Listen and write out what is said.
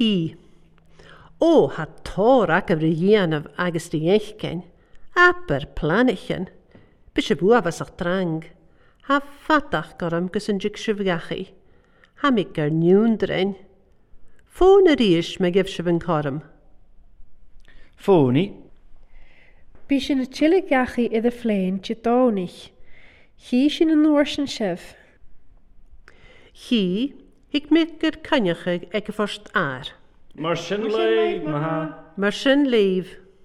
Hí. Ó, tha tóir agaibh ry dhéanamh agus ry fheiscin. Abair pleanichin. Bidh sibh uathbhasach trang. Tha fathach orm gus an dtig sibh gheachaidh. Tha mi gur niúndrainn. Fóin arís má gheibh sibh an corm. Fónaí. Bhí sin a tuilleadh geachaí idir phléin Dé Domhnaigh. Chí sin an uair sin sibh. Chí, thuig mé gur coinneach ag a phost fhear. Mar sin léibh, maithe. Mar sin léibh.